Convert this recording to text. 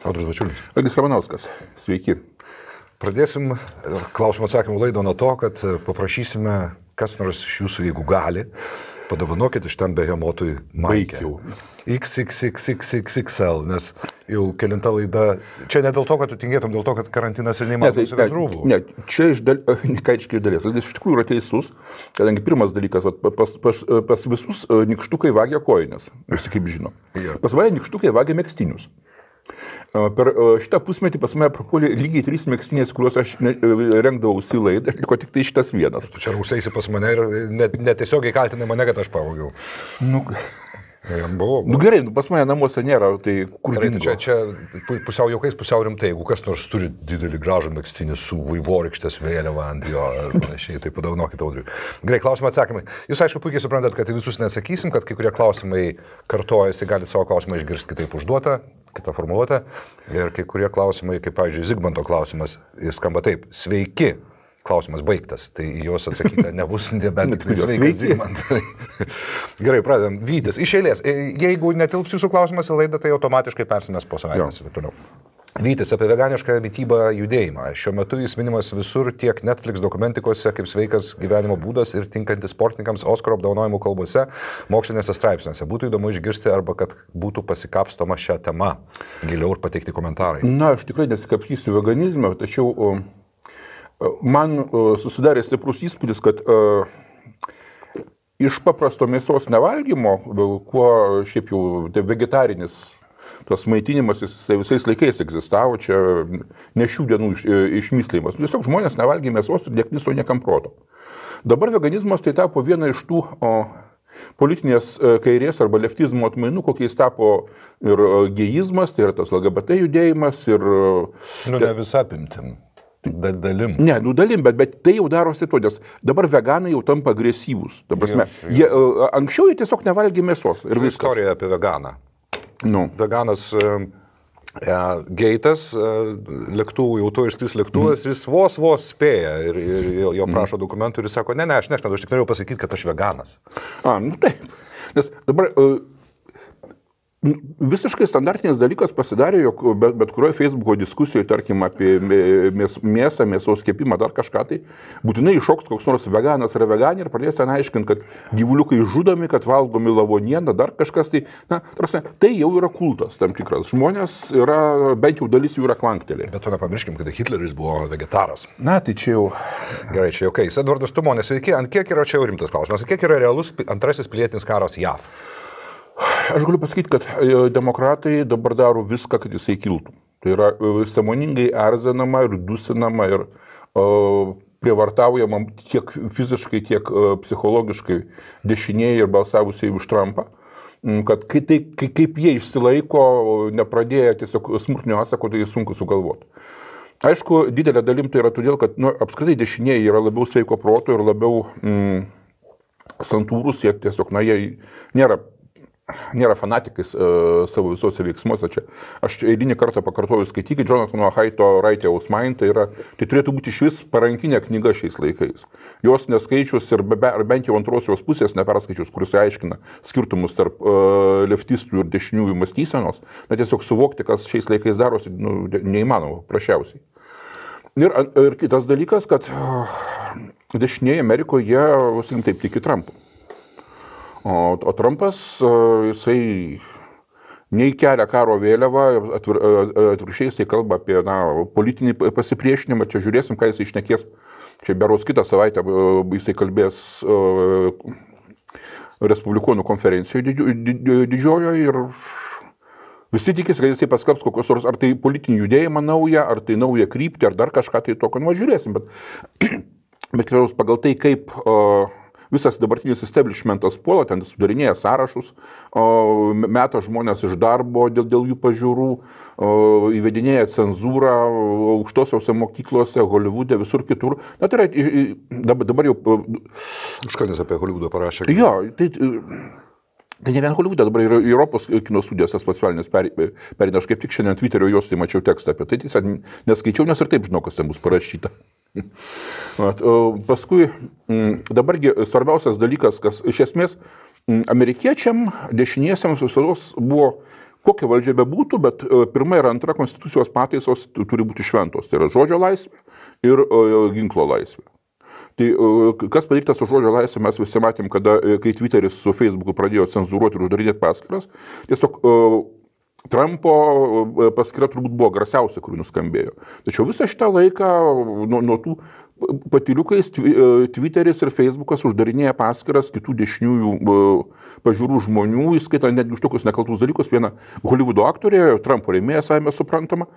Audrius Bačiulis. Algis Ramanauskas. Sveiki. Pradėsim klausimų atsakymų laidą nuo to, kad paprašysime, kas nors iš jūsų, jeigu gali, padovanokit iš tam behemotui maikę. XXXXXL, nes jau kelinta laida. Čia ne dėl to, kad tu tingėtum, dėl to, kad karantinas ir neįmanoma nusivesti rūbų. Ne, čia iš dalies. Jis iš tikrųjų yra teisus, kadangi pirmas dalykas, pas visus nykštukai vagia kojines, visi kaip žino. Pas mane nykštukai vagia megztinius. Per šitą pusmetį pas mane prapuolė lygiai 3 megztinės, kuriuos aš rengdavausi laidą, liko tik tai šitas vienas. Tu čia rausaisi pas mane ir netiesiogiai kaltinai mane, kad aš pavogiau. Gerai, pas mane namuose nėra, tai kur dingo? Čia pusiau jaukais, pusiau rimtai, jeigu kas nors turi didelį gražų megztinį su vaivorykštės vėliava ant jo, panašiai, tai padovanokit Audriui. Gerai, klausimai atsakymai. Jūs aišku puikiai suprantat, kad visus neatsakysim, kad kai kurie klausimai kartojasi, galite savo klausimą išgirsti kitaip užduotą, kitą formuluotę. Ir kai kurie klausimai, kaip pavyzdžiui, Zigmanto klausimas, jis skamba taip: sveiki. Klausimas baigtas, tai juos atsakyti nebus, nebent tik sveikas Zigmantai. Gerai, pradedam. Vytis, iš eilės. Jeigu netilps jūsų klausimas į laidą, tai automatiškai persimės po savaitės ir toliau. Vytis, apie veganišką mitybą judėjimą. Šiuo metu jis minimas visur, tiek Netflix dokumentikose, kaip sveikas gyvenimo būdas ir tinkantis sportininkams Oskaro apdovanojimų kalbose, mokslinėse straipsniuose. Būtų įdomu išgirsti arba kad būtų pasikapstoma šią temą giliau ir pateikti komentarai. Na, aš tikrai nesikapstysiu veganizmą, tačiau man susidarė stiprus įspūdis, kad iš paprasto mėsos nevalgymo, kuo šiaip jau tai vegetarinis tos maitinimas visais laikais egzistavo, čia ne šių dienų išmyslimas. Tiesiog žmonės nevalgė mėsos ir nekniso niekam proto. Dabar veganizmas tai tapo viena iš tų politinės kairės arba leftizmo atmainų, kokiais tapo ir gėjizmas, tai yra tas LGBT judėjimas ir... Ne visą apimtim. Dalim. Ne, dalim, bet tai jau darosi to, nes dabar veganai jau tampa agresyvūs. Anksčiau jie tiesiog nevalgė mėsos. Ir viskas. Istorija apie veganą. Veganas geitas, lėktuvų, jau to išskris lėktuvas, jis vos spėja ir jo prašo dokumentų ir jis sako, ne, aš nešnedu, aš tik norėjau pasakyti, kad aš veganas. Taip. Nes dabar... Visiškai standartinis dalykas pasidarė, jog bet kurioje Facebooko diskusijoje, tarkim, apie mėsą, mėsos kepimą, dar kažką, tai būtinai iššoks koks nors veganas ar veganė ir pradės ten aiškinti, kad gyvuliukai žudomi, kad valgomi lavonieną, dar kažkas, tai jau yra kultas tam tikras. Žmonės yra, bent jau dalis jų yra klanktelė. Bet to nepamirškim, kad Hitleris buvo vegetaras. Na, tai čia jau... Gerai, čia jau kai. Edvardas Tumonis, sveiki, ant kiek yra čia jau rimtas klausimas, ant kiek yra realus antrasis pilietinis karas JAV? Aš galiu pasakyti, kad demokratai dabar daro viską, kad jisai kiltų. Tai yra sąmoningai erzinama ir dusinama ir prievartaujama tiek fiziškai, tiek psichologiškai dešinieji ir balsavusiai už Trumpą, kad kaip jie išsilaiko, nepradėję tiesiog smurtinio atsako, tai sunku sugalvoti. Aišku, didelė dalim tai yra todėl, kad apskritai dešinieji yra labiau sveiko proto ir labiau santūrus, jie tiesiog, jie nėra fanatikais savo visuose veiksmuose. Čia. Aš eilinį kartą pakartoju, skaitykit Jonathano Haito Righteous Mind, tai turėtų būti iš vis parankinė knyga šiais laikais. Jos neskaičius ir bent jau antrosios pusės neperskaičius, kuris aiškina skirtumus tarp leftistų ir dešiniųjų mąstysenos, tiesiog suvokti, kas šiais laikais darosi, neįmanoma, prašiausiai. Ir kitas dalykas, kad dešinieji Amerikoje, sakykim taip, tiki Trumpu. O Trumpas, jisai nei kelia karo vėliavą, atvirkščiai jisai kalba apie politinį pasipriešinimą, čia žiūrėsim, ką jisai šnekės. Čia berods kitą savaitę jisai kalbės Respublikonų konferencijoje didžiojoje ir visi tikisi, kad jisai paskelbs kokios nors, ar tai politinį judėjimą naują, ar tai naują kryptį, ar dar kažką tai tokio, žiūrėsim, bet pagal tai, kaip visas dabartinis establishmentas puola, ten sudarinėja sąrašus, meta žmonės iš darbo dėl jų pažiūrų, įvedinėja cenzūrą aukštosiose mokyklose, Holivude, visur kitur. Tai yra, dabar jau... Užkandis apie Holivudą parašė. Jo, tai ne vien Holivude, dabar yra Europos kino studijos tas pats velnis perina. Aš kaip tik šiandien Twitterio jos tai mačiau tekstą apie tai, tiesiog neskaičiau, nes ir taip žinau, kas ten bus parašyta. Paskui dabargi svarbiausias dalykas, kas iš esmės amerikiečiam dešiniesiams visados buvo kokia valdžia bebūtų, bet pirma ir antra konstitucijos pataisos turi būti šventos. Tai yra žodžio laisvė ir ginklo laisvė. Tai kas padaryta su žodžio laisvė, mes visi matėm, kai Twitteris su Facebooku pradėjo cenzūruoti ir uždarinėti paskyras, tiesiog Trumpo paskyra turbūt buvo garsiausia, kuri nuskambėjo. Tačiau visą šitą laiką nuo tų patyliukais Twitteris ir Facebookas uždarinėja paskyras kitų dešiniųjų pažiūrų žmonių, įskaitant netgi už tokius nekaltus dalykus. Viena Hollywoodo aktorė, Trumpo rėmėja, savime suprantama,